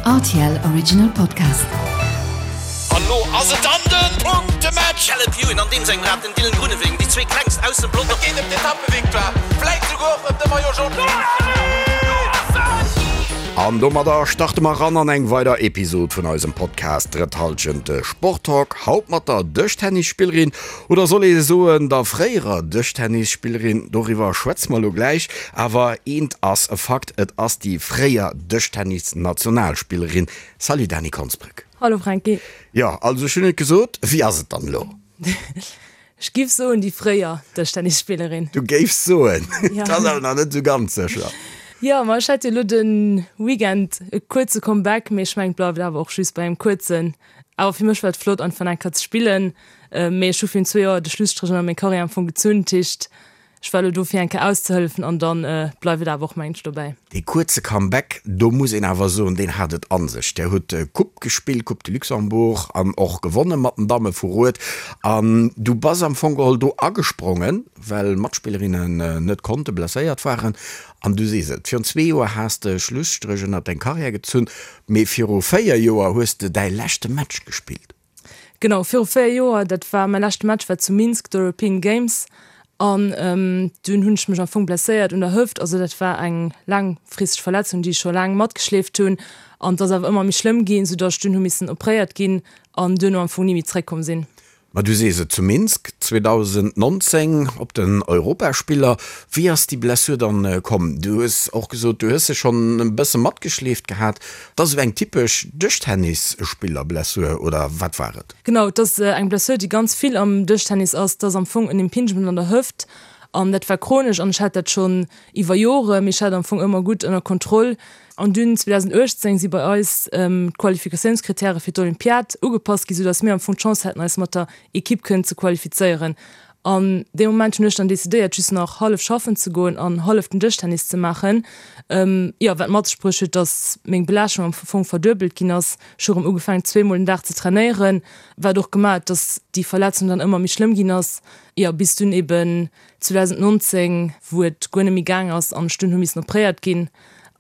Rtl Original Podcast. An lo ass et dann den Punktematch! Caleb Ewan an deem sengem Rad, den Dylan Groenewegen, déi zwee klengst aus dem Pelotong. Et geet ëm d'Etappevictoire, vläit souguer och ëm de Maillot Jaune. An domadder starte mer ran an eng weider Episod vun eisem Podcast Drëtt Halschent, de Sporttalk. Haut mat der Dëschtennisspillerin, oder soll ee soen der fréierer Dëschtennisspillerin, doriwwer schwätze mer elo gläich. Awer eent ass e Fakt, et ass déi fréier Dëschtennis-Nationalspillerin. Salut Dany Konsbrück. Hallo Franky. Jo, also ech hunn et gesot, wéi ass et dann elo? Ech giff soen déi fréier Dëschtennisspillerin. Du géifs soen? Et ass awer nach net esou ganz sécher. Jo, ma ech hat jo elo de Weekend e kuerze Comeback, mee ech mengen et bleift awer och just bei engem kuerzen. Awer fir mech war et flott einfach nach eng Kéier ze spillen, mee ech hu virun zwee Joer de Schlusstréch ënner meng Karriär am Fong gezunn, dat heescht Ech war elo do fir eng Kéier auszehëllefen an dann bleift et awer och mengen ech dobäi. Dee kuerze Comeback, do muss een awer soen, deen hat et an sech. Där hutt Coupe gespillt, Coupe de Luxembourg, an och gewonne mat den Damme vu Rued. An du bass am Fong geholl do agesprongen, well Matspillerinnen net konnten, blesséiert waren. An du sees et, virun zwee Joer has de Schlusstréch ënnert deng Karriär gezunn, mee viru 4 Joer hues de däi leschte Match gespillt. Genau, viru 4 Joer, dat war mäi leschte Match war zu Minsk, d'European Games an dunn hunn ech mech am Fong blesséiert un der Hëft. Also dat war eng laangfristeg Verletzung, déi ech scho laang matgeschleeft hunn an et ass awer ëmmer méi schlëmm ginn, soudatt ech dunn hu missen opréiert ginn an duerno am Fong ni méi zeréckkomm sinn. Ma du sees et, zu Minsk 2019 op den Europaspiller. Wéi ass déi Blessur dann komm? Du hues och gesot, du hues se schonn e bësse matgeschleeft gehat. Et ass esou eng typesch Dëschtennisspillerblessur, oder wat war et? Genau, et ass eng Blessur, déi ganz vill am Dëschtennis ass. Et ass am Fong en Impingement an der Hëft an dat war chronesch an ech hat dat schonn iwwer Jore, mee ech hat am Fong ëmmer gutt ënner Kontroll. An dunn 2018 si bei eis d'Qualifikatiounskrittäre fir d'Olympiad ugepasst ginn, soudatt mir am Fong d'Chance haten, eis mat der Ekipp kënnen ze qualifizéieren. An dee Moment hunn ech dann decidéiert, just nach hallef schaffen ze goen an hallef den Dëschtennis ze maachen. Jo, wat mat sech bruecht huet, dass meng Belaaschtung am Fong verduebelt ginn ass. Ech hu rëm ugefaangen, zweemol den Dag ze trainéieren, wat och gemaach huet, dass déi Verletzung dann ëmmer méi schlëmm ginn ass. Jo, bis dunn eben 2019, wou et guer net méi gaang ass an ech dunn hu missen opréiert ginn.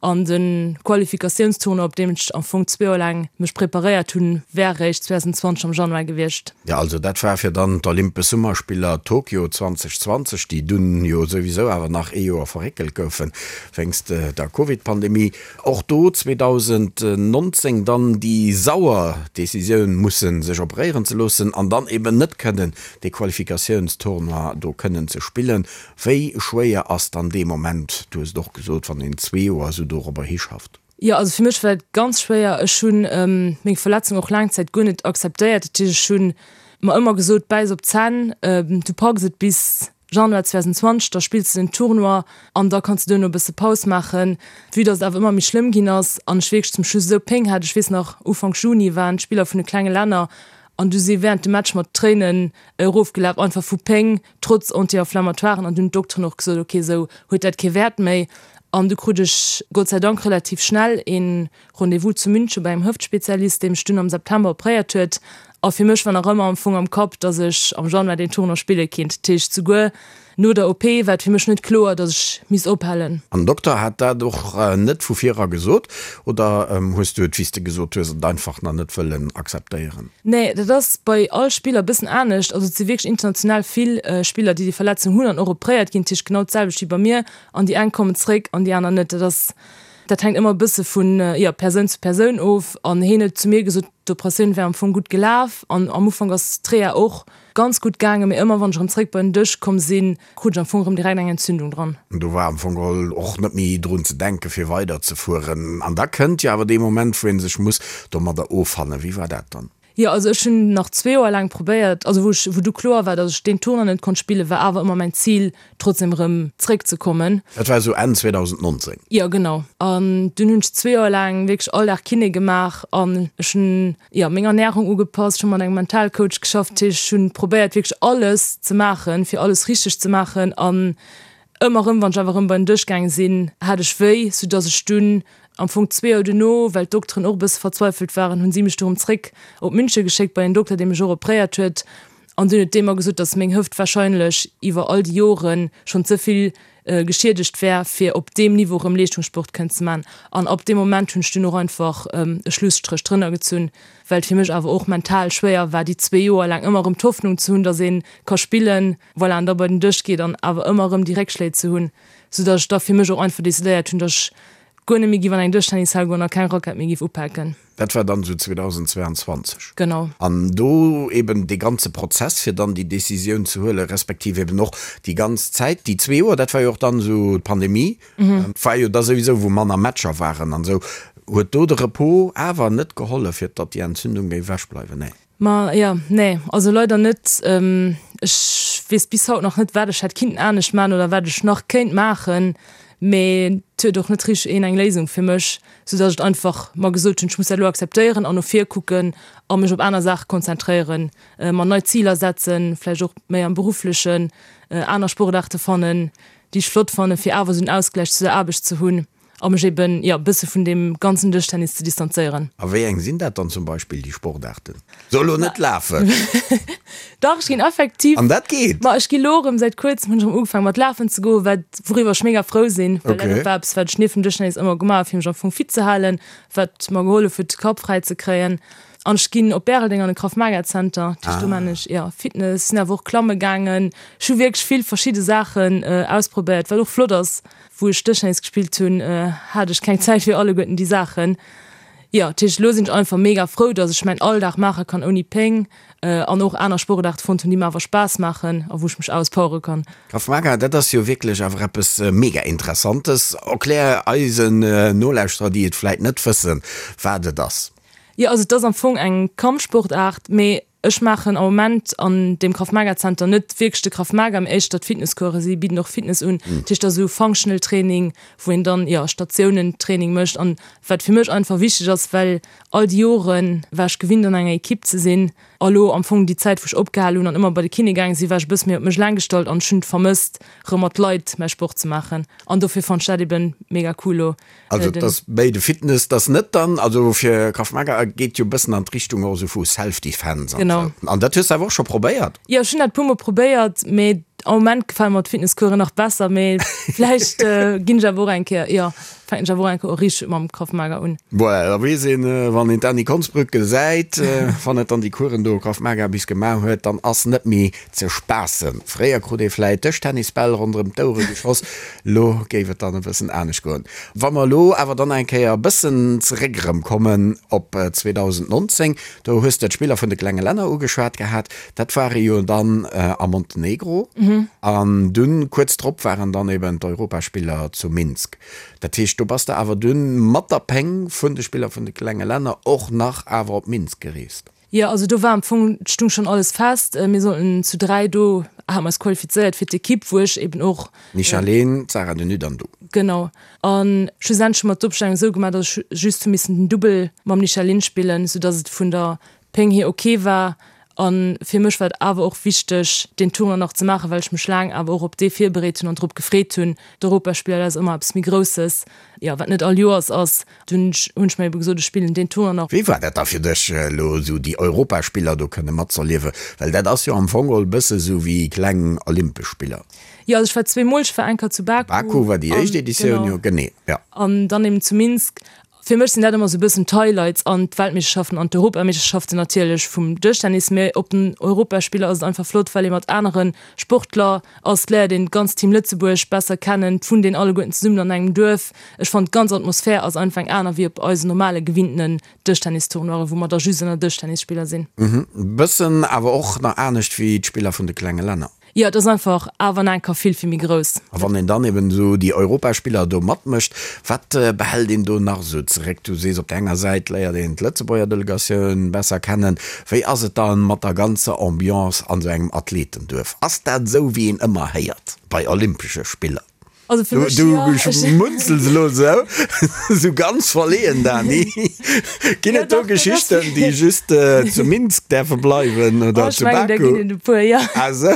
An de Qualifikatiounstournoi, op deem ech am Fong zwee Joer laang mech preparéiert hunn, wär eréischt 2020 am Januar gewiescht. Jo, also dat war fir dann d'Olympesch Summerspiller Tokio 2020, déi dunn jo souwisou awer nach ee Joer verréckelt goufen, wéinst der Covid-Pandemie. Och do 2019 dann déi sauer Decisioun mussen, sech operéieren ze loossen an dann eben net kënnen dee Qualifikatiounstournoi do kënnen ze spillen. Wéi schwéier ass dann dee Moment, du hues et och gesot, wann een zwee Joer esou dorobber hischafft? Jo, also fir mech war et ganz schwéier. Ech hu meng Verletzung och laang Zäit guer net akzeptéiert. Dat heescht, ech hu mer ëmmer gesot, bäiss op d'Zänn, du packs et bis Januar 2020, da spills de den Tournoi an da kanns de duerno e bësse Paus maachen. Vue datt et awer ëmmer méi schlëmm ginn ass an ech wierklech zum Schluss esou Péng hat, ech weess nach, Ufank Juni waren d'Spiller vun de klenge Länner an du si wärend dem Match mat Tréinen erofgelaf, einfach vu Péng. trotz Anti-Inflammatoiren an dunn d'Dokteren och gesot, ok esou huet dat kee Wäert méi an du krut ech Gott sei Dank relativ schnell een Rendez-vous zu München bei engem Hëftspezialist, dee mech dunn am September opréiert huet a fir mech war nach ëmmer am Fong am Kapp, dass ech am Januar deen Tournoi spille kinnt. Dat heescht souguer no der OP war et fir mech net kloer, dass ech misst ophalen. An den Dokter hat dat och net vu vir era gesot oder hues du et, wéi s de gesot hues, et einfach nach net wëllen akzeptéieren? Nee, dat ass bei all Spiller e bëssen anescht. Also et si wierklech international vill Spiller, déi déi Verletzung hunn an och opréiert ginn. Dat heescht genau d'selwecht wéi bei mir. An déi eng kommen zréck an déi aner net. Dat ass, dat hänkt ëmmer e bësse vun, jo, Persoun zu Persoun of. An hien huet zu mir gesot, d'Operatioun wär am Fong gutt gelaf an am Ufank ass d'Reha och ganz gutt gaangen, mee ëmmer wann ech erëm zréck bei den Dësch komm sinn, krut ech am Fong erëm direkt eng Entzündung dran. Do war am Fong geholl och net méi drun ze denken, fir weider ze fueren. An da kënnt jo awer dee Moment, wou ee sech muss domadder offannen. Wéi war dat dann? Jo, also ech hunn nach zwee Joer laang probéiert, also wou ech, wou du kloer war, datt ech deen Tournoi net konnt spillen, war awer ëmmer mäin Zil, trotzdem erëm zréck ze kommen. Dat war esou Enn 2019? Jo, genau. An dunn hunn ech zwee Joer laang wierklech all Dag Kiné gemaach an ech hunn, jo, meng Ernärung ugepasst, ech hu mat engem Mentalcoach geschafft, dat heescht, ech hunn probéiert wierklech alles ze maachen, fir alles richteg ze maachen an ëmmer erëm, wann ech awer erëm bei den Dësch gaange sinn, hat ech wéi, soudass ech dunn am Fong zwee Joer duerno, well d'Dokteren och e bësse verzweifelt waren, hunn si mech du erëm zréck op München geschéckt bei en Dokter, dee mech och opréiert huet an dunn huet dee mer gesot, dass meng Hëft wahrscheinlech iwwer all déi Jore schonn ze vill. geschiedegt wär, fir op deem Niveau erëm Leeschtungssport kënnen ze man. An ab deem Moment hunn ech dunn och einfach e Schlusstréch drënner gezunn, well et fir mech awer och mental schwéier war, déi zwee Joer laang ëmmer erëm d'Hoffnung ze hunn, datt ee ka spillen, voilà, an da bei den Dësch geet an awer ëmmer erëm déi Réckschléi ze hunn, soudatt ech da fir mech och einfach decidéiert hunn, datt ech guer net méi giff an eng Dëschtennis-Hal goen a keng Rackett méi giff upaken. Dat war dann esou 2022. Genau. An do eben dee ganze Prozess, fir dann déi Décisioun ze huelen, respektiv eben och déi ganz Zäit, déi zwee Joer, dat war jo och dann esou d'Pandemie, war jo da souwisou, wou manner Matcher waren an esou. Huet do de Repos awer net gehollef, fir datt déi Entzündung géif ewechbleiwen? Nee. Ma jo, nee, also leider net. Ech weess bis haut nach net, wat ech hätt kinnten anescht maachen oder wat ech nach kéint maachen, mee et huet och net richteg een eng Léisung fir mech, sou datt ech einfach mer gesot hunn, ech muss dat elo akzeptéieren an no vir kucken a mech op aner Saache konzentréieren, mer nei Ziler setzen, vläicht och méi am Berufflechen, aner Sportaarte fannen, déi ech flott fannen, fir awer esou en Ausgläich zu der Aarbecht ze hunn. A mech eben, jo, e bësse vun deem ganzen Dëschtennis ze distanzéieren. A wéi eng sinn dat dann zum Beispill, déi Sportaarten? So elo net lafen! Dach, ech ginn effektiv. An dat geet? Ma ech gi lo erëm, säit kuerzem hunn ech erëm ugefaangen mat lafen ze goen, wat, wouriwwer ech mega frou sinn, well dat och war eppes, wat ech nieft dem Dëschtennis ëmmer gemaach hu fir mech am Fong fit ze halen, wat mer gehollef huet de Kapp fräi ze kréien. An ech ginn op Bäreldeng an de Krav Maga Center, dat heescht do maan ech, jo, Fitness, sinn awer och klamme gaangen. Ech hu wierklech vill verschidde Saachen ausprobéiert, wat och flott ass. Wou ech Dëschtennis gespillt hunn, hat ech keng Zäit fir alleguerten déi Saachen. Jo, dat heescht, elo sinn ech einfach mega frou, dass ech mäin Alldag maache kann ouni Péng an och aner Sportaarte fonnt hunn, déi mer awer Spaass maachen a wou ech mech auspowere kann. Krav Maga, dat ass jo wierklech awer eppes mega Interessantes. Erklär eisen Nolauschterer, déi et vläit net wëssen, wat et ass. Jo, also et ass am Fong eng Kampfsportaart, mee Ech maachen am Moment an deem Krav Maga Zenter net wierklech de Krav Maga, mee éischter d'Fitnesscoursen. Si bidden och Fitness un. Dat heescht, dat ass esou Functional Training, wou een dann, jo, Statiounen-Training mécht. An wat fir mech einfach wichteg ass, well all déi Jore war ech gewinnt an enger Ekipp ze sinn. A lo am Fong déi Zäit, wou ech opgehal hunn an ëmmer bei de Kiné gaange sinn, war ech e bësse méi op mech eleng gestallt an ech hunn et vermësst, rëm mat Leit mäi Sport ze maachen. An dofir fannt ech dat eben mega cool lo. Also et ass méi de Fitness, et ass net dann, also fir Krav Maga geet jo e bëssen an d'Richtung och esou vu Self-Defense an esou. An dat hues de awer och scho probéiert? Jo, ech hunn dat e puer mol probéiert, mee am Moment gefale mer d'Fitnesscoursen nach besser, mee vläicht ginn ech awer och eng Kéier, jo, fänken ech awer och eng Kéier och richteg mam Krav Maga un. Voilà, da weess een, wann een d'Anny Konsbrück gesäit, wann et dann déi Coursen do Krav Maga bis gemaach huet, dann ass net méi ze spaassen. Fréier krut ee vläit Dëschtennisbäll ronderëm d'Ouere geschoss, lo géif et dann e bëssen anescht goen. Wa mer elo awer dann eng Kéier e bëssen zeréck erëm kommen op 2019, do hues de d'Spiller vun de klenge Länner ugeschwat gehat, dat ware jo dann a Montenegro an dunn kuerz drop waren dann eben d'Europaspiller zu Minsk. Dat heescht, do bass de awer dunn mat der Péng vun de Spiller vun de klenge Länner och nach awer op Minsk gereest. Jo, also do war am Fong, et stung schon alles fest, mir sollten zu 3 do, hate mer eis qualifizéiert fir d'Equipe, wou ech eben och. D'Michaline, d'Sarah de Nutte an du. Genau. A schlussendlech hu mer d'Opstellung esou gemaach, datt ech just hu missen den Dubbel mam Michaline spillen, soudatt et vun der Péng hier ok war. A fir mech war et awer och wichteg, deen Tournoi nach ze maachen, well ech mech laang awer och op dee virbereet hunn an drop gefreet hunn. D'Europaspiller, dat ass ëmmer eppes méi Grousses, jo, wat net all Joers ass. Dunn hunn ech mir ebe gesot, ech spillen deen Tournoi nach. Wéi war dat da fir dech, elo esou déi Europaspiller do kënne matzerliewen? Well dat ass jo am Fong geholl e bësse sou wéi kleng Olympesch Spiller. Jo, also ech war zweemol, ech war eng Kéier zu Baku. Baku war déi éischt Editioun, jo, genee, jo. An dann eben zu Minsk. Fir mech sinn dat ëmmer sou e bëssen d'Highlights an d'Weltmeeschterschaften an d'Europameeschterschaften natierlech vum Dëschtennis. Mee op den Europaspiller ass et einfach flott, well ee mat anere Sportler ass, léiert een d'ganz Team Lëtzebuerg besser kennen, d'wunnt een alleguerten zesummen an engem Duerf. Ech fannen d'ganz Atmosphär ass einfach eng aner wéi op eisen normale gewinntenen Dëschtennistournoiren, wou mer da just ënner Dëschtennisspiller sinn. Mhm, bëssen awer och nach anescht wéi d'Spiller vun de klenge Länner. Jo, et ass einfach awer nach eng Kéier vill, vill méi grouss. A wann een dann eben esou déi Europaspiller do matmécht, wat behält een do nach esou zeréck? Du sees, op der enger Säit léiert een d'Lëtzebuerger Delegatioun besser kennen. Wéi ass et dann mat der ganzer Ambiance an esou engem Athletenduerf? Ass dat esou wéi een ëmmer héiert bei Olympesche Spiller? Also fir mech, jo. Du schmunzels elo esou, esou ganz verleeën, Dani. Ginn et do Geschichten, déi just zu Minsk däerfe bleiwen oder zu Baku? Oh, ech mengen, der ginn et e puer, jo. Ah sou.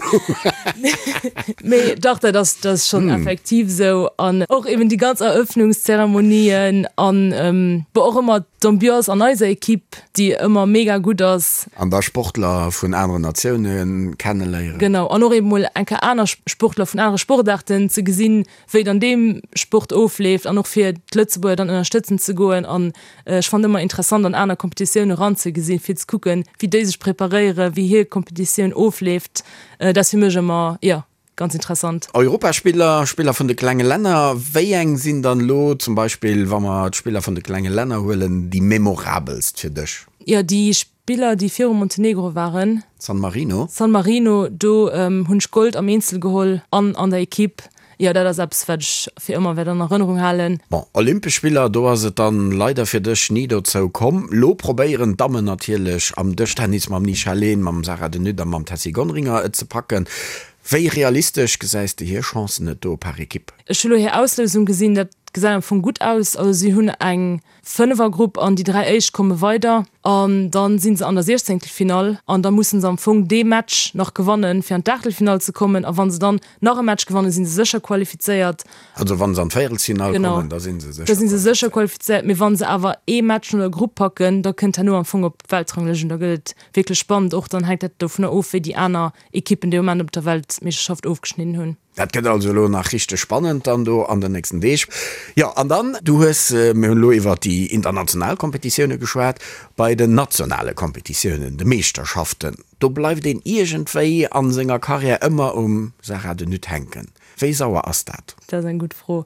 Mee dach, dat ass, dat ass schonn effektiv esou. An och eben déi ganz Eröffnungszeremonien an bon och ëmmer d'Ambiance an eiser Equipe, déi ëmmer mega gutt ass. An da Sportler vun aneren Natioune kenneléieren. Genau, an och eben mol eng Kéier aner Sportler vun anere Sportaarten ze gesinn, wéi et an deem Sport ofleeft an och fir d'Lëtzebuerger dann ënnerstëtzen ze goen. An ech fannen ëmmer interessant an aner Kompetitioune ranzegesinn, fir ze kucken, wéi déi sech preparéieren, wéi hir Kompetitioun ofleeft. Dat ass fir mech ëmmer, jo, Ganz interessant. Europaspiller, Spiller vun de klenge Länner, wéi eng sinn dann elo zum Beispill, wa mer d'Spiller vun de klenge Länner huelen, déi memorabelst fir dech? Jo, déi Spiller, déi viru Montenegro waren. San Marino? San Marino, do hunn ech Gold am Eenzel geholl an an der Equipe. Jo, dat ass eppes, wat ech fir ëmmer wäert an Erënnerung halen. Bon, Olympesch Spiller, do ass et dann leider fir dech ni dozou komm. Lo probéieren d'Dammen natierlech am Dëschtennis mam Nisha Lehn, mam Sarah De Nutte a mam Tessy Gonringer et ze packen. Wéi realistesch gesäis de hir Chancen et do par Equipe? Ech hu lo hir Auslousung gesinn, dat gesäit am Fong gutt aus. Also si hunn eng Fënnefergrupp an déi 3 éischt komme weider an dann si se an der Siechzéngtelfinall an da musse se am Fong dee Match nach gewannen, fir an d'Aachtelfinall ze kommen a wa se dann nach e Match gewannen, si se sécher qualifizéiert. Also wa se an d'Véierelsfinall kommen, da si se sécher qualifizéiert. Da si se sécher qualifizéiert, mee wa se awer ee Match no der Grupp packen, da kënnt herno am Fong op d'Weltranglëscht un. Da gëtt et wierklech spannend. Och dann hänkt dat dovunner of, wéi déi aner Ekippen dee Moment op der Weltmeeschterschaft ofgeschnidden hunn. Dat gëtt also elo nach richteg spannend dann do an den nächsten Deeg. Jo, an dann, du hues, mir hunn elo iwwert déi international Kompetitioune geschwat, bei den nationale Kompetitiounen, de Meeschterschaften, do bleift een iergendwéi a senger Karriär ëmmer um Sarah de Nutte hänken. Wéi sauer ass dat? Dat ass eng gutt Fro.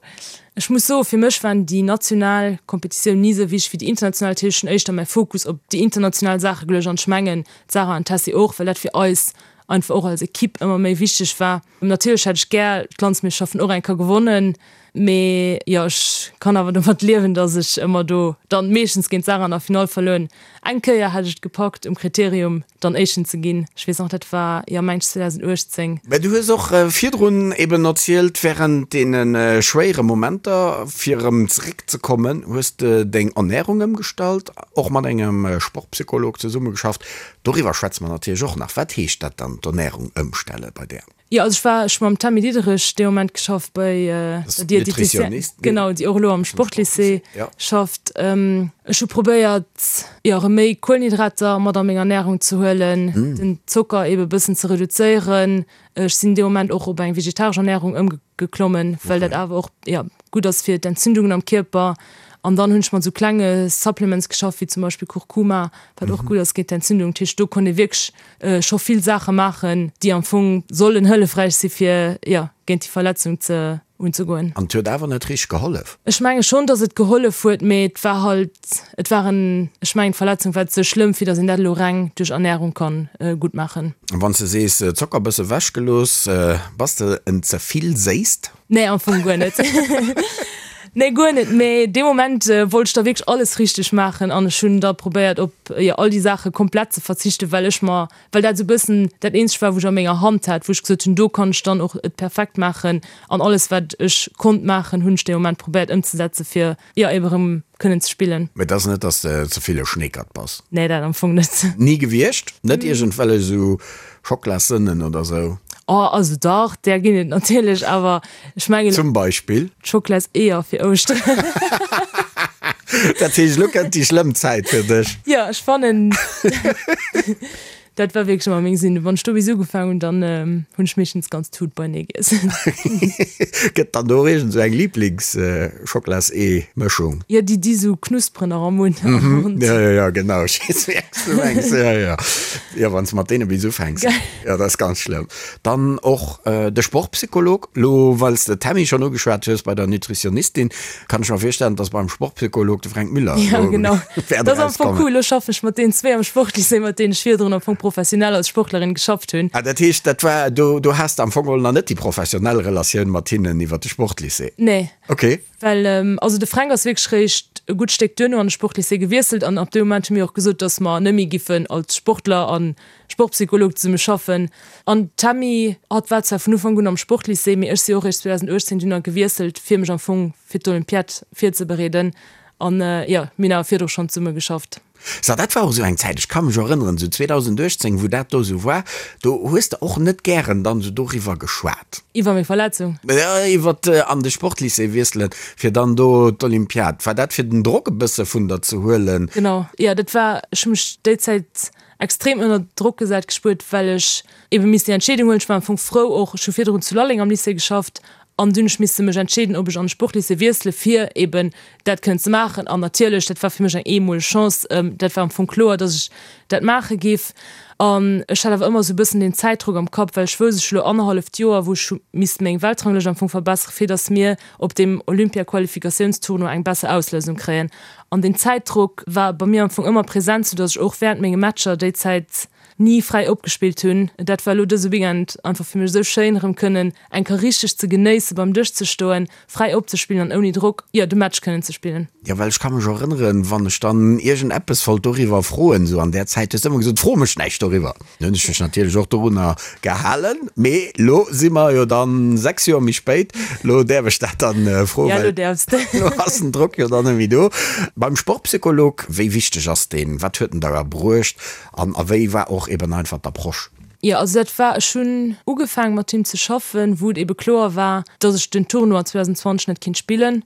Ech muss soen, fir mech waren déi national Kompetitiounen ni esou wichteg wéi déi international. Dat heescht, ech hunn éischter mäi Fokus op déi international Saache geluecht an ech mengen, d'Sarah an d'Tessy och, well dat fir eis einfach och als Equipe ëmmer méi wichteg war. Natierlech hätt ech gär d'Landsmeeschterschaften och eng Kéier gewonnen, mee jo, ech kann awer domat liewen, dass ech ëmmer do dann meeschtens géint d'Sarah an der Finall verluer hunn. Eng Kéier hat ech et gepackt um Kriterium dann Éischten ze ginn, ech weess nach, dat war, jo, mengt ech 2018. Mä du hues och virdrun eben erzielt, wärend deene schwéiere Momenter, fir erëm zeréckzekommen, hues de deng Ernärung ëmgestallt, och mat engem Sportpsycholog zesummegeschafft. Doriwwer schwätze mer natierlech och nach. Wat heescht dat dann, d'Ernärung ëmstelle bei där? Jo, also ech war, ech hu mam Tammy Diderich dee Moment geschafft bei der Diététicienne, genau, déi och elo am Sportlycée schafft. Ech hu probéiert, jo, erëm méi Kuelenhydrater mat a meng Ernärung ze huelen, den Zocker ebe bëssen ze reduzéieren. Ech sinn dee Moment och op eng vegetaresch Ernärung ëmgeklommen, well dat awer och, jo, gutt ass fir d'Entzündungen am Kierper. An dann hunn ech mat esou klenge Supplements geschafft, wéi zum Beispill Kurkuma, wat och gutt ass géint d'Entzündung. Dat heescht, do konnt ee wierklech scho vill Saache maachen, déi am Fong sollen hëllefräich si fir, jo, géint déi Verletzung ze unzegoen. An et huet awer net richteg gehollef? Ech menge schonn, datt et gehollef huet, mee et war halt, et war en, ech mengen d'Verletzung war ze schlëmm, fir datt een dat elo reng duerch Ernärung kann gutt maachen. Wann s de sees Zocker bësse wech gelooss, bass de en ze vill Séisst? Nee, am Fong guer net. Nee, guer net. Mee dee Moment wollt ech da wierklech alles richteg maachen an ech hunn da probéiert op, jo, all déi Saache komplett ze verzichten, well ech mer, well dat esou e bëssen dat eenzegt war, wou ech a menger Hand hat, wou ech gesot hunn, do kann ech dann och et perfekt maachen an alles wat ech konnt maachen, hunn ech dee Moment probéiert ëmzesetze fir, jo, ebe rëm kënnen ze spillen. Mee et ass net, dass de ze vill e Schneekert bass? Nee, dat am Fong net. Ni gewiescht? Net iergendwellech esou Schockelassënnen oder sou? Oh, also dach, där ginn et natierlech, awer ech mengen. Zum Beispill? D'Schocklaseeër fir Ouschteren. Dat heescht, elo kënnt déi schlëmm Zäit fir dech? Jo, ech fannen. Dat war wierklech ëmmer meng Sinn. Wann ech do bis ugefaangen hunn, dann hunn ech meeschtens d'ganz Tut beinee giess. Gëtt dann do och iergend esou eng Liiblings-Schocklas-Ee-Mëschung? Jo, déi déi sou knusperen nach am Mund. Mhm, jo, jo, jo, genau, ech weess wéi eng s du mengs. Jo, jo, jo, wann s de mat deene bis ufänks, jo, dat ass ganz schlëmm. Dann och de Sportpsycholog, lo well s de d'Tammy schonn ugeschwat hues bei der Nutritionistin, Kann ech mer virstellen, dass beim Sportpsycholog de Fränk Müller Ja, genau. wäert Dat ass am Fong erauskommen. cool. Elo schaffen ech mat deenen zwee am Sportlycée, mat deenen ech virdrun am Fong. professionell als Sportlerin geschafft hunn. Ah, dat heescht, dat war, do, do has de am Fong geholl nach net déi professionell Relatioun mat hinnen iwwer de Sportlycée? Nee. Okay. Well, also de Fränk ass wierklech réischt e gutt Stéck duerno an de Sportlycée gewiesselt an ab deem Moment hu mir och gesot, dass mer net méi giffen als Sportler a Sportpsycholog zesumme schaffen. An d'Tammy, hatt war zwar vun Ufank un am Sportlycée, mee ech si och réischt 2018 dunn gewiesselt, fir mech am Fong fir d'Olympiad virzebereeden. An jo, mir hunn awer virdru schonn zesumme geschafft. So, dat war och esou eng Zäit, ech ka mech erënneren, esou 2018, wou dat do esou war, do hues de och net gären dann esou doriwwer geschwat. Iwwer meng Verletzung? Jo, iwwer an de Sportlycée wiesselen, fir dann do d'Olympiad. War dat fir den Drock e bësse vun der ze huelen? Genau, jo, dat war, ech hu mech déi Zäit extrem ënner Drock gesat gespuert, well ech ebe misst déi Entscheedung huelen. Ech war am Fong frou och, ech hu virdrun zu Lalleng am Lycée geschafft an dunn hu ech misse mech entscheeden, ob ech an de Sportlycée wiessele fir eben dat kënnen ze maachen. An natierlech, dat war fir mech eng eemoleg Chance, dat war am Fong kloer, datt ech dat maache giff. An ech hat awer ëmmer esou e bëssen deen Zäitdrock am Kapp, well ech wousst, ech hu lo annerhalleft Joer, wou ech hu misst meng Weltranglëscht am Fong verbessere fir datt mir op deem Olympia-Qualifikatiounstournoi eng besser Auslousung kréien. An deen Zäitdrock war bei mir am Fong ëmmer present, soudass ech och während menge Matcher déi Zäit ni fräi opgespillt hunn. Dat war elo dëse Weekend einfach fir mech esou schéin, erëm kënnen eng Kéier richteg ze genéissen, beim Dësch ze stoen, fräi opzespillen an ouni Drock, jo, de Match kënnen ze spillen. Jo, well ech ka mech erënneren, wann ech dann iergend eppes wollt doriwwer froen, esou an där Zäit, hues de ëmmer gesot, Fro mech näischt doriwwer. Dann hunn ech mech natierlech och dorunner gehalen. Mee lo si mer jo dann 6 Joer méi spéit, lo däerf ech dat dann froen, Ja, lo däerfs de. Lo ass den Drock jo dann net méi do. Beim Sportpsycholog, wéi wichteg ass deen? Wat huet en der bruecht an a wéi war och eben einfach d'Approche? Jo, also dat war, ech hunn ugefaange mat him ze schaffen, wou et ebe kloer war, datt ech den Tournoi 2020 net kinnt spillen.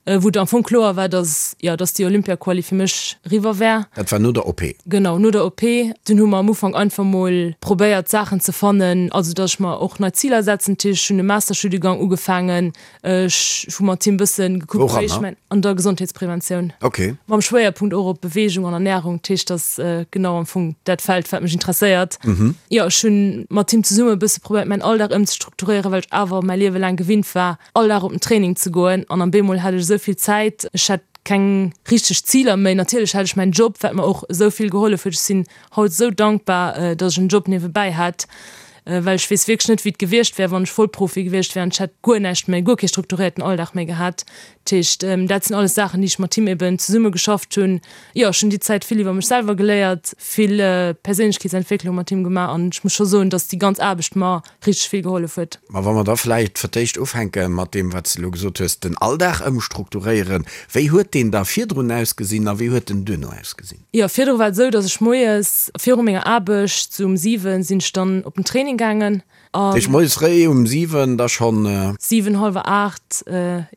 Wou et am Fong kloer war, dass, jo, dass déi Olympia-Quali fir mech eriwwer wär. Dat war no der OP? Genau, no der OP. Dunn hu mer am Ufank einfach mol probéiert, Saachen ze fannen, also dass ech mer och nei Ziler setzen. Dat heescht, ech hunn e Masterstudiengang ugefaangen, ech hu mat him bësse gekuckt, wéi ech mäin. An der Gesondheetspreventioun. Ok. Mam Schwéierpunkt och op Beweegung an Ernärung. Dat heescht, dass genau am Fong dat Feld, wat mech interesséiert. Jo, ech hunn mat him zesumme e bësse probéiert, mäin Alldag ëmzestrukturéieren, well ech awer mäi Liewe laang gewinnt war, all Dag op den Training ze goen an am bemol hat ech esou vill Zäit, ech hat keng richteg Ziler méi. Natierlech hat ech mäin Job, wat mer och esou vill gehollef huet. Ech sinn haut esou dankbar, dass ech en Job niewebäi hat, well ech weess wierklech net, wéi et gewiescht wär, wann ech Vollprofi gewiescht wär an ech hätt guer näischt méi, guer kee strukturéierten Alldag méi gehat. Dat heescht, dat sinn alles Saachen, déi ech mat him eben zesumme geschafft hunn. Jo, ech hunn déi Zäit vill iwwer mech selwer geléiert, vill Perséinlechkeetsentwécklung mat him gemaach an ech muss scho soen, dass déi ganz Aarbecht mer richteg vill gehollef huet. Ma wa mer da vläicht fir d'éischt ufänke mat deem, wat s de elo gesot hues, den Alldag ëmstrukturéieren. Wéi huet deen da virdrun ausgesinn a wéi huet en duerno ausgesinn? Jo, virdru war et esou, datt ech moies viru menger Aarbecht, sou um 7, sinn ech dann op den Training gaangen an. Dat heescht moies fréi um 7 da schonn? 7, hallwer 8,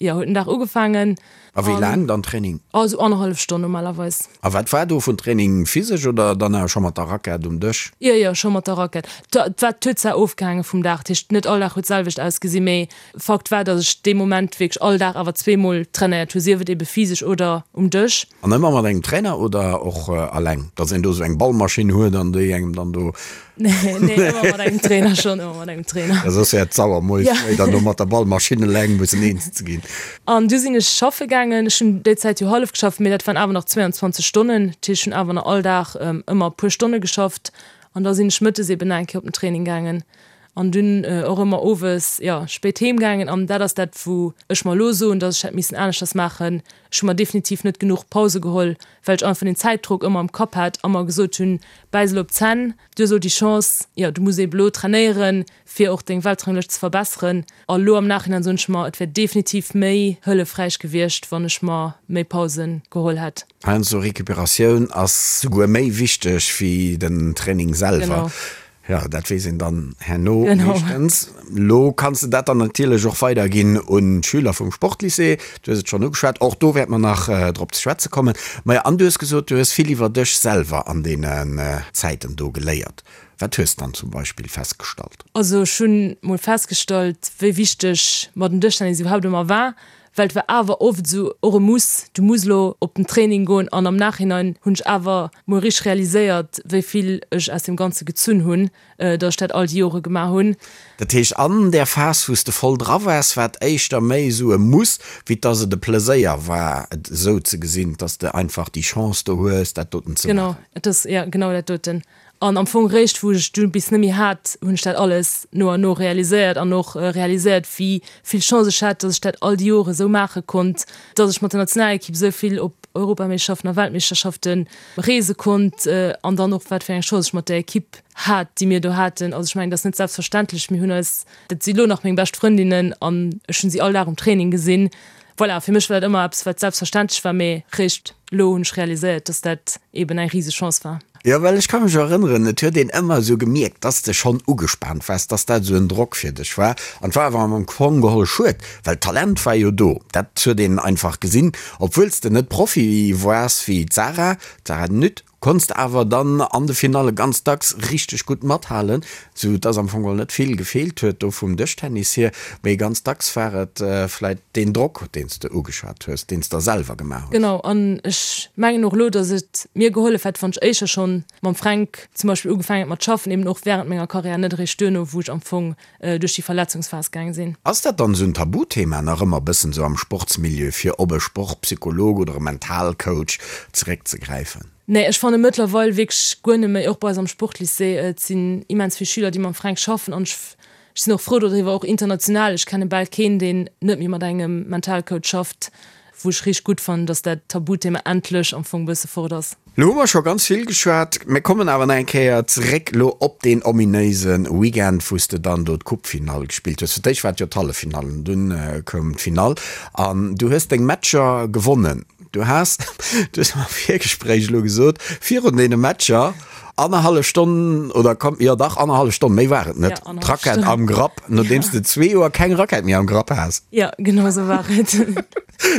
jo, huet den Dag ugefaangen. A wéi laang dann Training? Oh, esou annerhallef Stonn normalerweis. A wat war do vun Training? Physesch oder dann awer scho mat der Rackett um Dësch? Jo, jo, scho mat der Rackett. Dat war, huet zwar ofgehaange vum Dag, dat heescht net all Dag huet d'selwecht ausgesinn, mee Fakt war, datt ech dee Moment wierklech all Dag awer zweemol trainéiert hu, sief et ebe physesch oder um Dësch. An ëmmer mat engem Trainer oder och alleng? Datt een do esou eng Ballmaschinn huet an déi engem dann do. Nee, nee, ëmmer mat engem Trainer schon, ëmmer mat engem Trainer. Ja, soss wär et sauer, moies fréi dann do mat der Ballmaschinn eleng mussen eens ze ginn. An du sinn ech schaffe gaangen. Ech hunn déi Zäit jo hallef geschafft, mee dat waren awer nach 22 Stonnen. Dat heescht, ech hunn awer nach all Dag ëmmer e puer Stonne geschafft. An da sinn ech mëttes eben nach eng Kéier op den Training gaangen. An dunn och ëmmer owes, jo, spéit heem gaangen. An dat ass dat, wou ech mer elo soen, dass ech hätt missen aneschters maachen. Ech hu mer definitiv net genuch Pause geholl, well ech einfach den Zäitdrock ëmmer am Kapp hat a mer gesot hunn, bäiss elo op d'Zänn, du hues elo déi Chance, jo, du muss eben elo trainéieren, fir och deng Weltranglëscht ze verbesseren. A lo am Nachhinein soen ech mer, et wär definitiv méi hëllefräich gewiescht, wann ech mer méi Pausen geholl hätt. Heiansdo Recuperatioun ass souguer méi wichteg wéi den Training selwer. Genau. Jo, dat weess een dann herno meeschtens. Lo kanns de dat dann natierlech och weiderginn un d'Schüler vum Sportlycée. Du hues et schonn ugeschwat, och do wäerte mer nach drop ze schwätze kommen. Maja, an du hues gesot, du hues vill iwwer dech selwer an deenen Zäiten do geléiert. Wat hues de dann zum Beispill festgestallt? Also ech hunn mol festgestallt, wéi wichteg mer den Dëschtennis iwwerhaapt ëmmer war. Well et war awer oft esou och e Muss, du muss elo op den Training goen an am Nachhinein hunn ech awer mol richteg realiséiert, wéi vill ech aus deem Ganze gezunn hunn, datt ech dat all déi Jore gemaach hunn. Dat heescht, an där Phas, wou s de voll dra waars, war et éischter méi esou e Muss, wéi dass et e Pleséier war, et esou ze gesinn, dass de einfach déi Chance do hues, dat doten ze maachen. Genau, et ass, jo, genau dat doten. An am Fong réischt wou ech du bis net méi hat, hunn ech dat alles no an no realiséiert an och realiséiert, wéi vill Chance ech hat, datt ech dat all déi Jore sou maache konnt, datt ech mat der Nationalekipp sou vill op Europameeschterschaften a Weltmeeschterschafte reese konnt an dann och wat fir eng Chance ech mat där Ekipp hat, déi mir do haten. Also ech mengen, dat ass net selbstverständlech. Mir hunn eis, dat si lo nach meng bescht Frëndinnen an ech hunn si all Dag um Training gesinn. Voilà, fir mech war dat ëmmer eppes, wat selbstverständlech war, mee réischt elo hunn ech realiséiert, dass dat eben eng riseg Chance war. Jo, well ech ka mech erënneren, et huet een ëmmer esou gemierkt, dass de schonn ugespaant waars, dass dat esou en Drock fir dech war. An et war awer am Fong geholl schued, well d'Talent war jo do, dat huet een einfach gesinn, obwuel s de net Profi waars wéi d'Sarah, d'Sarah Nütt. Konns de awer dann an de Finalle ganz dacks richteg gutt mathalen, sou dass am Fong geholl net vill gefeelt huet do vum Dëschtennis hier, mee ganz dacks war et vläit deen Drock, deen s de ugeschwat hues, deen s der selwer gemaach hues. Genau, an ech mengen och elo, dass et mir gehollef hätt, wann ech éischer schonn mam Fränk zum Beispill ugefaangen hätt mat schaffen, eben och wärend menger Karriär, net eréischt duerno, wou ech am Fong duerch déi Verletzungsphas gaang sinn. Ass dat dann esou en Tabuthema nach ëmmer bëssen esou am Sportsmilieu fir op e Sportpsycholog oder e Mentalcoach zeréckzegräifen? Nee, ech fanne mëttlerweil wierklech guer net méi, och bei eis am Sportlycée, et sinn immens vill Schüler déi mam Fränk schaffen an ech sinn och frou dodriwwer, och international, ech kenne bal keen deen net méi mat engem Mentalcoach schafft. Wou ech richteg gutt fannen, dass dat Tabuthema endlech am Fong bësse fort ass. Lo hu mer scho ganz vill geschwat. Mir kommen awer nach eng Kéier zeréck lo op deen ominéise Weekend, wou s de dann do d'Coupefinall gespillt hues. Fir d'éischt war et jo d'Halleffinall an dunn koum d'Finall an du hues deng Matcher gewonnen. Du has, du hues am Virgespréich elo gesot, virun deene Matcher annerhallef Stonn oder komm, jo dach annerhallef Stonn, méi war et net, d'Rackett am Grapp, nodeems de zwee Joer keng Rackett méi am Grapp has. Jo, genau esou war et.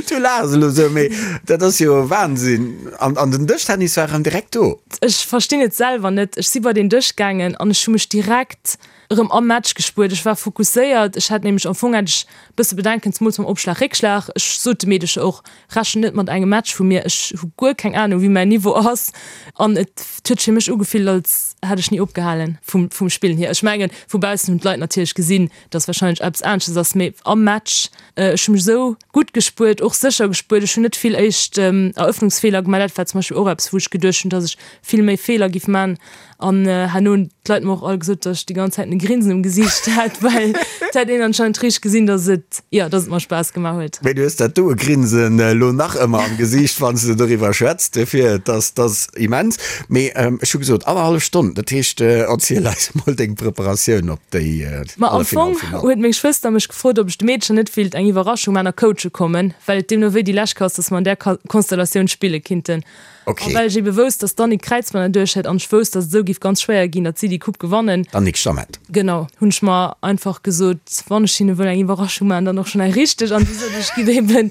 Du laachs elo esou, mee dat ass jo Wahnsinn. An, an den Dëschtennis war erëm direkt do. Ech verstinn et selwer net. Ech si bei den Dësch gaangen an ech hu mech direkt erëm am Match gespuert. Ech war fokusséiert. Ech hat nämlech, am Fong hat ech e bësse Bedenken, zemools mam Opschlag, Réckschlag. Ech sot de Meedecher och, Rechent net mat engem Match vu mir, ech hu guer keng Anung wéi mäin Niveau ass an et huet fir mech ugefillt als hätt ech ni opgehalen vum vum Spillen hier. Ech mengen vu baussen hunn d'Leit natierlech gesinn, dass wahrscheinlech eppes anesches ass, mee am Match, ech hu mech esou gutt gespuert, och sécher gespuert, ech hunn net vill éischt Eröffnungsfeeler gemaach, dat war zum Beispill och eppes wou ech geduecht hunn, dass ech vill méi Feeler giff man An herno hunn d'Leit mer och all gesot, datt ech déi ganz Zäit e Grinsen um Gesiicht hat, well et hätt een anscheinend richteg gesinn, datt et, jo, datt et mer Spaass gemaach huet. Mee du hues dat doe Grinsen elo nach ëmmer am Gesiicht, wann s de doriwwer schwätz. Duerfir, et ass, et ass immens. Mee ech hu gesot, annerhallef Stonn, dat heescht, erziel eis emol deng Preparatioun op déi Ma am Fong Halleffinall. huet meng Schwëster mech gefrot, ob ech de Meedcher net wéilt eng Iwwerraschung man a coache kommen, well et deemno wéi déi lescht Kéier ass, datt mer an där Konstellatioun spille kinnten. Okay. A well ech ebe wousst, dass d'Annick Kräizmann erduerch hätt an ech wousst, dass et esou giff ganz schwéier ginn, datt si déi Coupe gewannen. D'Annick Stammet. Genau, hunn ech mer einfach gesot, wann ech hinne wëll eng Iwwerraschung maachen, dann och schonn eng richteg. An du sot ech, giff eben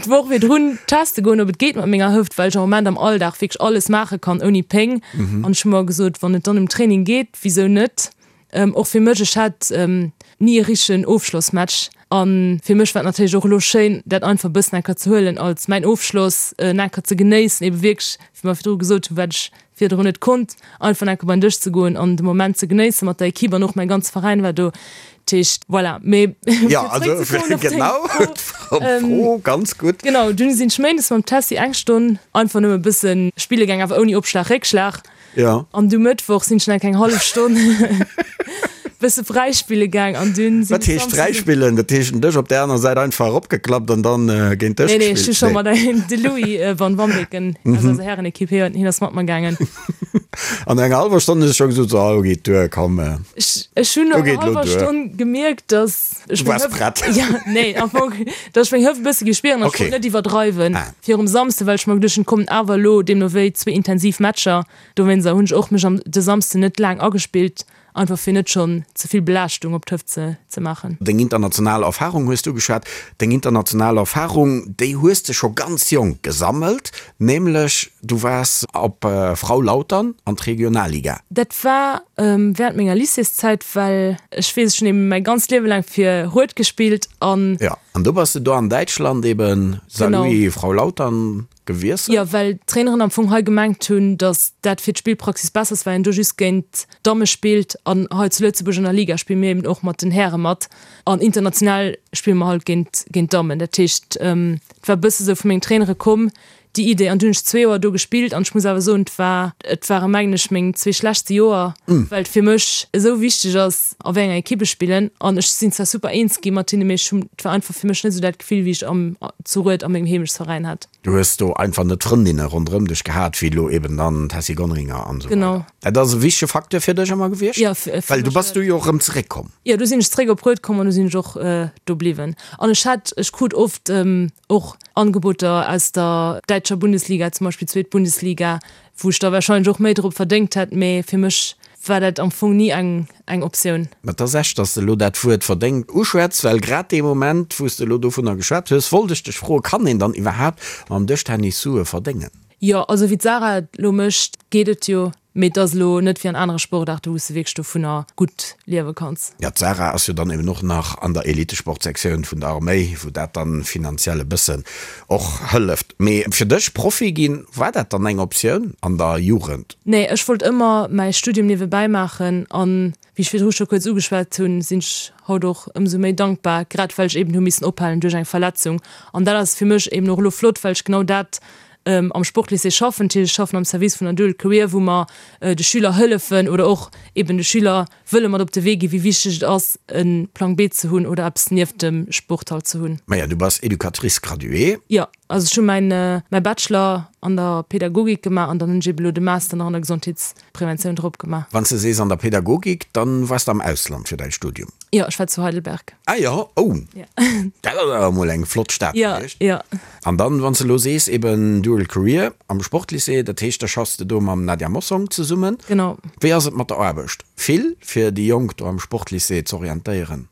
d'Woch virdrun teste goen, ob et geet mat menger Hëft, well ech am Moment am Alldag wierklech alles maache kann ouni Péng. An ech hu mer gesot, wann et dann um Training geet, wisou net? Och fir mech, ech hat ni e richtegen Ofschlossmatch a fir mech war et natierlech och elo schéin, dat einfach e bëssen enker ze huelen als mäin Ofschloss, en enker ze genéissen, ebe wierklech, wéi mer virdru gesot hunn, wat ech virdrun net konnt, einfach enker bei den Dësch ze goen an de Moment ze genéissen mat der Equipe an och mäi ganze Veräin war do. Dat heescht, voilà. Mee fir zeréckzekommen op deng Fro, Fro, ganz gutt. Genau, dunn sinn ech méindes mam Tessy eng Stonn einfach nëmme e bësse spille gaang, awer ouni Opschlag, Réckschlag. Ja. An du Mëttwoch sinn ech nach eng hallef Stonn bësse fräispille gaang an dunn sinn Wat heescht fräispillen? Dat heescht den Dësch op der aner Säit einfach eropgeklappt an dann géint Dësch gespillt? Nee, nee, ech hu scho mat engem, de Louis van Wambeken aus eiser Härenekipp, hien hien ass mat mer gaangen. An no enger hallwer Stonn hues du scho gesot, so, elo geet duer, komm. Ech, ech hunn no enger hallwer Stonn gemierkt, dass ech meng Hëft. Du waars prett. Ja, nee, am Fong, dass ech meng Hëft e bësse géif spieren an ech wollt net iwwerdreiwen. Virum Samsde, well ech mer geduecht hunn, et kommen awer elo deemno wéi zwee intensiv Matcher. Dowéinster hunn ech och mech am de Samsden net laang agespillt, einfach fir net schonn ze vill Belaaschtung op d'Hëft ze ze maachen. Deng international Erfarung hues du ugeschwat. Deng international Erfarung, déi hues de scho ganz jonk gesammelt, nämlech du waars op Frau Lautern an d'Regionalliga. Dat war während menger Lycéeszäit, well ech weess, ech hunn eben mäi ganzt Liewe laang fir Rued gespillt an. Jo. An du bass de do an Däitschland eben Saarlouis, Frau Lautern gewiesselt? Jo, well d'Traineren am Fong hei gemengt hunn, datt dat fir d'Spillpraxis besser ass, well een do just géint d'Damme spillt. An hei zu Lëtzebuerg an der Liga spille mir eben och mat den Häre mat. An international spille mer halt géint géint d'Dammen. Dat heescht, et war e bësse sou vu mengen Trainere komm. Déi Idee, an du hunn ech zwee Joer do gespillt an ech muss awer soen, et war, et ware mengen ech meng zwee schlechtste Joer, well et fir mech esou wichteg ass a wéi enger Ekipp ech spillen an ech sinn zwar super eens gi mat hinne, mee ech hunn, et war einfach fir mech net esou dat Gefill wéi ech am zu Rued a mengem Heemechtsveräin hat. Du hues do einfach net d'Frëndinne ronderëm dech gehat wéi elo eben dann d'Tessy Gonringer an esou weider. Genau. Dat ass e wichtege Facteur fir dech ëmmer gewiescht? Jo, fir Well du mech bass du jo och erëm zeréckkomm. Jo, du sinn ech zeréck op Rued komm an du sinn ech och do bliwwen. An ech hat, ech krut oft och Angeboter aus der däitscher Bundesliga, zum Beispill zweet Bundesliga, wou ech da warscheinlech och méi drop verdéngt hätt, mee fir mech war dat am Fong ni eng eng Optioun. Mä et ass echt, dass de elo dat Wuert verdéngt uschwätz, well grad dee Moment, wou s de elo dovunner geschwat hues, wollt ech dech froen, Kann een dann iwwerhaapt mam Dëschtennis Sue verdéngen? Jo, also wéi d'Sarah et elo mécht, geet et jo, mee et ass elo net wéi an anere Sportaarte wou s de wierklech dovunner gutt liewe kanns. Jo, d'Sarah ass jo dann eben och nach an der Elitesportsektioun vun der Arméi, wou dat dann finanziell e bëssen och hëlleft. Mee fir dech, Profi ginn, war dat dann eng Optioun an der Jugend? Nee, ech wollt ëmmer mäi Studium niewebäi maachen an Wéi ech virdru scho kuerz ugeschwat hunn, sinn ech haut och ëmsou méi dankbar, grad well ech eben hu missen ophalen duerch eng Verletzung. An dat ass fir mech eben och elo flott, well ech genau dat am Sportlycée schaffen. Dat heescht, ech schaffen am Service vun der Dual Career, wou mer de Schüler hëllefen oder och eben de Schüler wëlle mat op de Wee ginn, wéi wichteg et ass, e Plang B ze hunn oder eppes nieft dem Sport halt ze hunn. Maja, du bass Educatrice graduée. Jo. Also ech hu mäin mäi Bachelor an der Pädagogik gemaach an dann hunn ech eben elo de Master nach an der Gesondheetspreventioun drop gemaach. Wann s de sees an der Pädagogik, dann waars de am Ausland fir däi Studium? Jo, ech war zu Heidelberg. Ah jo, oh, dat ass awer emol eng flott Stad gewiescht. Jo, jo. An dann, wann s de elo sees eben Dual Career am Sportlycée, dat heescht da schaffs de do mam Nadia Mossong zesummen. Genau. Wéi ass et mat der Aarbecht? Vill fir déi Jonk do am Sportlycée z'orientéieren?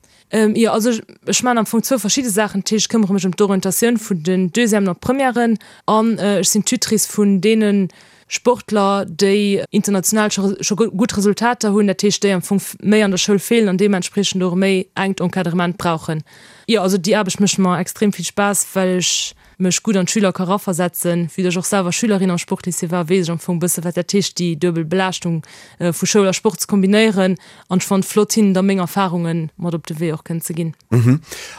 Jo, also ech maachen am Fong zwou verschidde Saachen. Dat heescht, ech këmmere mech ëm d'Orientatioun vun den Deuxièmen an Premièren an ech sinn Tutrice vun deene Sportler, déi international scho scho gutt Resultater hunn, dat heescht, déi am Fong méi an der Schoul feelen an deementspriechend och e méi enkt Encadrement brauchen. Jo, also déi Aarbecht mécht mer extrem vill Spaass, well ech mech gutt an d'Schüler ka raversetzen. Vue dass ech och selwer Schülerin am Sportlycée war, weess ech am Fong e bësse wat dat heescht, déi duebel Belaaschtung vu Schoul a Sport ze kombinéieren. An ech fannen et flott, hinnen da meng Erfarunge mat op de Wee och kënnen ze ginn.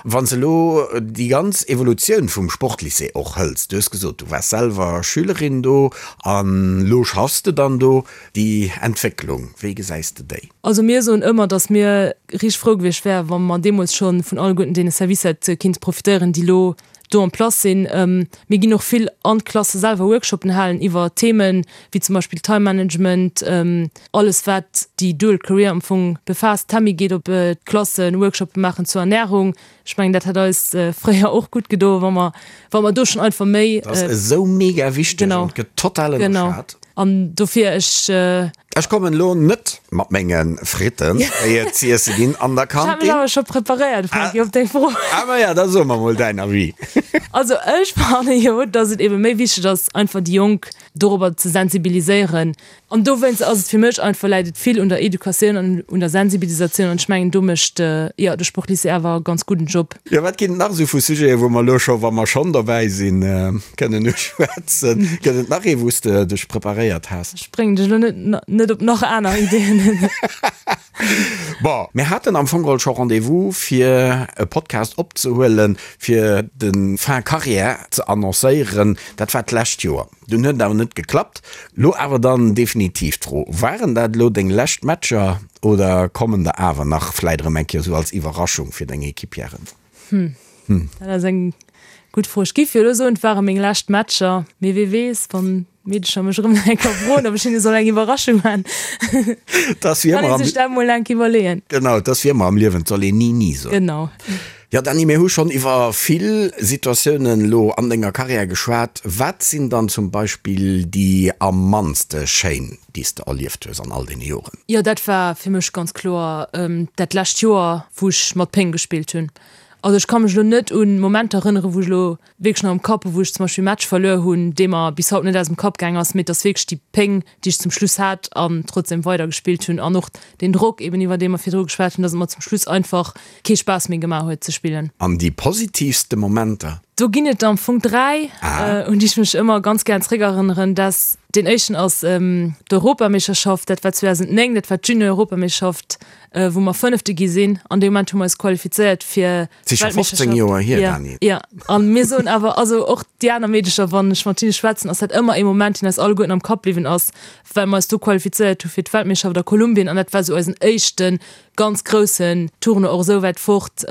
Wann s de elo déi ganz Evolutioun vum Sportlycée och hëls, du hues gesot, du waars selwer Schülerin do an elo schaffs de dann do, déi Entwécklung, wéi gesäis de déi? Also mir soen ëmmer, dass mir richteg frou gewiescht wären, wa mer deemools scho vun alleguerten deene Servicer hätte kinnt profitéieren, déi elo do en place sinn. Mir ginn och vill an d'Klasse selwer Workshopen halen iwwer Themen wéi zum Beispill Time Management, alles wat déi Dual Career am Fong befaasst. D'Tammy geet op d'Klassen Workshopen maachen zur Ernährung. Ech mengen dat hätt eis fréier och gutt gedo wa mer wa mer do schonn einfach méi. Dat ass esou mega wichteg an gëtt total ënnerschat. Genau. An dofir ech. Ech kommen elo net mat mengen Fritten, déi et z'iesse ginn an der Kantin. Ech hat mech awer scho preparéiert, Franky, op deng Fro. Ah maja, da so mer mol däin Avis. Also ech fanne jo, dass et ebe méi wichteg ass, einfach déi Jonk dorobber ze sensibiliséieren. An dowéinst ass et fir mech einfach, läit et vill un der Educatioun an un der Sensibilisatioun. An ech mengen, do mécht, jo, de Sportlycée awer e ganz gudden Job. Jo, wat ginn et nach esou vu Sujeten, wou mer elo scho, wa mer schonn dobäi sinn, kënnen uschwätzen? Gëtt et nach ee, wou s de dech preparéiert has? Ech bréngen dech elo net net op nach aner Ideeën. Bon, mir haten am Fong geholl scho Rendez-vous, fir e Podcast opzehuelen, fir de Fin Carrière ze annoncéieren. Dat war d'lescht Joer. Dunn huet et awer net geklappt. Lo awer dann definitiv d'Fro, Waren dat elo deng lescht Matcher oder kommen der awer nach, vläit erëm eng Kéier esou als Iwwerraschung fir deng Equipieren? Hm, dat ass eng gutt Fro. Ech giff jo elo soen, et ware meng lescht Matcher, mee wee weess, wann d'Meedecher mech erëm nach eng Kéier froen, ob ech hinne soll eng Iwwerraschung man. Kann ee sech dat mol eng Kéier iwwerleeën. Genau, et ass wéi ëmmer am Liewen, et soll een ni ni soen. Genau. Jo Dany, mir hu schonn iwwer vill Situatiounen elo an denger Karriär geschwat. Wat sinn dann zum Beispill déi am mannste schéin, déi s de erlieft hues an all deene Joren? Jo, dat war fir mech ganz kloer dat lescht Joer, wou ech mat Péng gespillt hunn. Also ech ka mech elo net un Momenter erënneren, wou ech elo wierklech nach am Kapp hu wou ech zum Beispill e Match verluer hunn, dee mer bis haut net aus dem Kapp gaang ass, mee et ass wierklech déi Péng, déi ech zum Schluss hat an trotzdem weider gespillt hunn an och deen Drock eben iwwer dee mer virdru geschwat hunn, dass et mer zum Schluss einfach kee Spaass méi gemaach huet ze spillen. An déi positivste Momenter? Do ginn et am Fong 3, un déi ech mech ëmmer ganz gären zréckerënneren. Dat, deen éischten ass d'Europameeschterschaft, dat war 2009, dat war d'Junior-Europameeschterschaft, wou mer Fënnefte gi sinn. An dee Moment hu mer eis qualifizéiert fir Et si scho 15 Joer hier, Dani. Jo, a mir soen awer, also och déi aner Meedecher, wann ech mat hinne schwätzen, ass dat ëmmer ee Moment, deen eis alleguerten am Kapp bliwwen ass, well mer eis do qualifizéiert hu fir d'Weltmeeschterschaft a Kolumbien an dat war esou eisen éischte ganz groussen Tournoi, och esou wäit fort.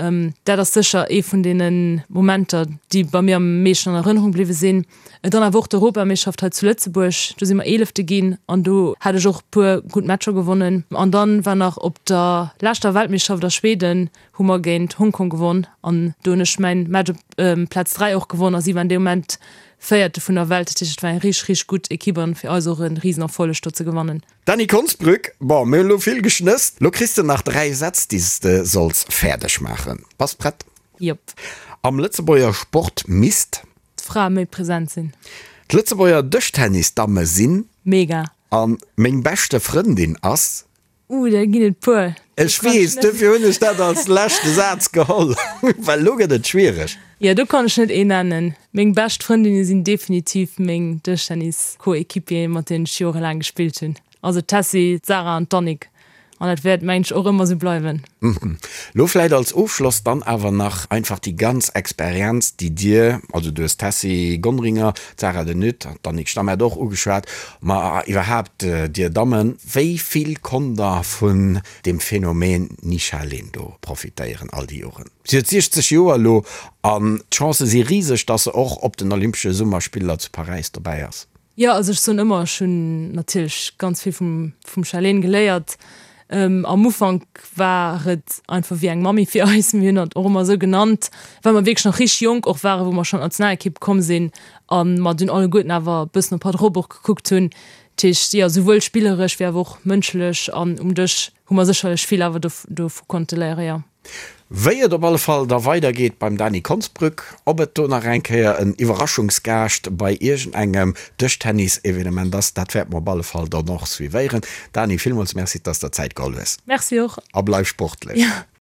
Dat ass sécher ee vun deene Momenter, déi bei mir am meeschten an Erënnerung bliwwe sinn. Dann awer och d'Europameeschterschaft hei zu Lëtzebuerg, do si mer Eelefte ginn an do hat ech och e puer gutt Matcher gewonnen. An dann war nach op der leschter Weltmeeschterschaft a Schweden hu mer géint Hongkong gewonn an do hunn ech mäin Match op Plaz 3 och gewonn a si waren dee Moment Véierte vun der Welt. Dat heescht, et war eng richteg, richteg gutt Ekipp an fir eis och e Risenerfolleg do ze gewannen. Dany Konsbrück, Bon, mir hunn elo vill geschnësst. Lo kriss de nach 3 Sätz, déi s de solls fäerdeg maachen. Bass prett? Jop. Am Lëtzebuerger Sport misst. D'Frae méi present sinn. D'Lëtzebuerger Dëschtennis-Damme sinn. Mega. A meng beschte Frëndin ass. Uh, der ginn et puer. Ech weess, dofir hunn ech dat als leschte Saz geholl, well elo gëtt et schwiereg. Jo, do kann ech net een nennen. Meng bescht Frëndinne sinn definitiv meng Dëschtennis-Coéquipieren, mat deenen ech jorelaang gespillt hunn. Also d'Tessy, d'Sarah an d'Annick. An dat wäert, mengen ech, och ëmmer esou bleiwen. Lo vläit als Ofschloss dann awer nach einfach déi ganz Experienz, déi Dir, also du hues d'Tessy Gonringer, d'Sarah de Nutte an d'Annick Stammet och ugeschwat, ma iwwerhaapt Dir Dammen, wéi vill konnt Der vun deem Phänomen Nisha Lindo profitéieren all déi Joren? Si huet 60 Joer elo an d'Chancë si riseg, dass se och op den Olympesche Summerspiller zu Paräis dobäi ass. Jo, also ech soen ëmmer, ech hunn natierlech ganz vill vum vum Charlene geléiert. Am Ufank war et einfach wéi eng Mammi fir eis, mir hunn hatt och ëmmer esou genannt, well mer wierklech nach richteg jonk och waren, wou mer schonn an d'Nationalekipp komm sinn a mer dunn alleguerten awer e bëssen op hatt erop och gekuckt hunn. Dat heescht, jo, souwuel spilleresch wéi awer och mënschlech an um Dësch hu mer sécherlech vill awer dovu konnte léieren, jo. Wéi et op alle Fall da weider geet beim Dany Konsbrück, ob et do nach eng Kéier en Iwwerraschungsgaascht bei iergend engem Dëschtennis-Evenement ass, dat wäerte mer op alle Fall dann och suivéieren. Dany, villmools Merci, dass der Zäit geholl hues. Merci och. A bleif sportlech. Jo.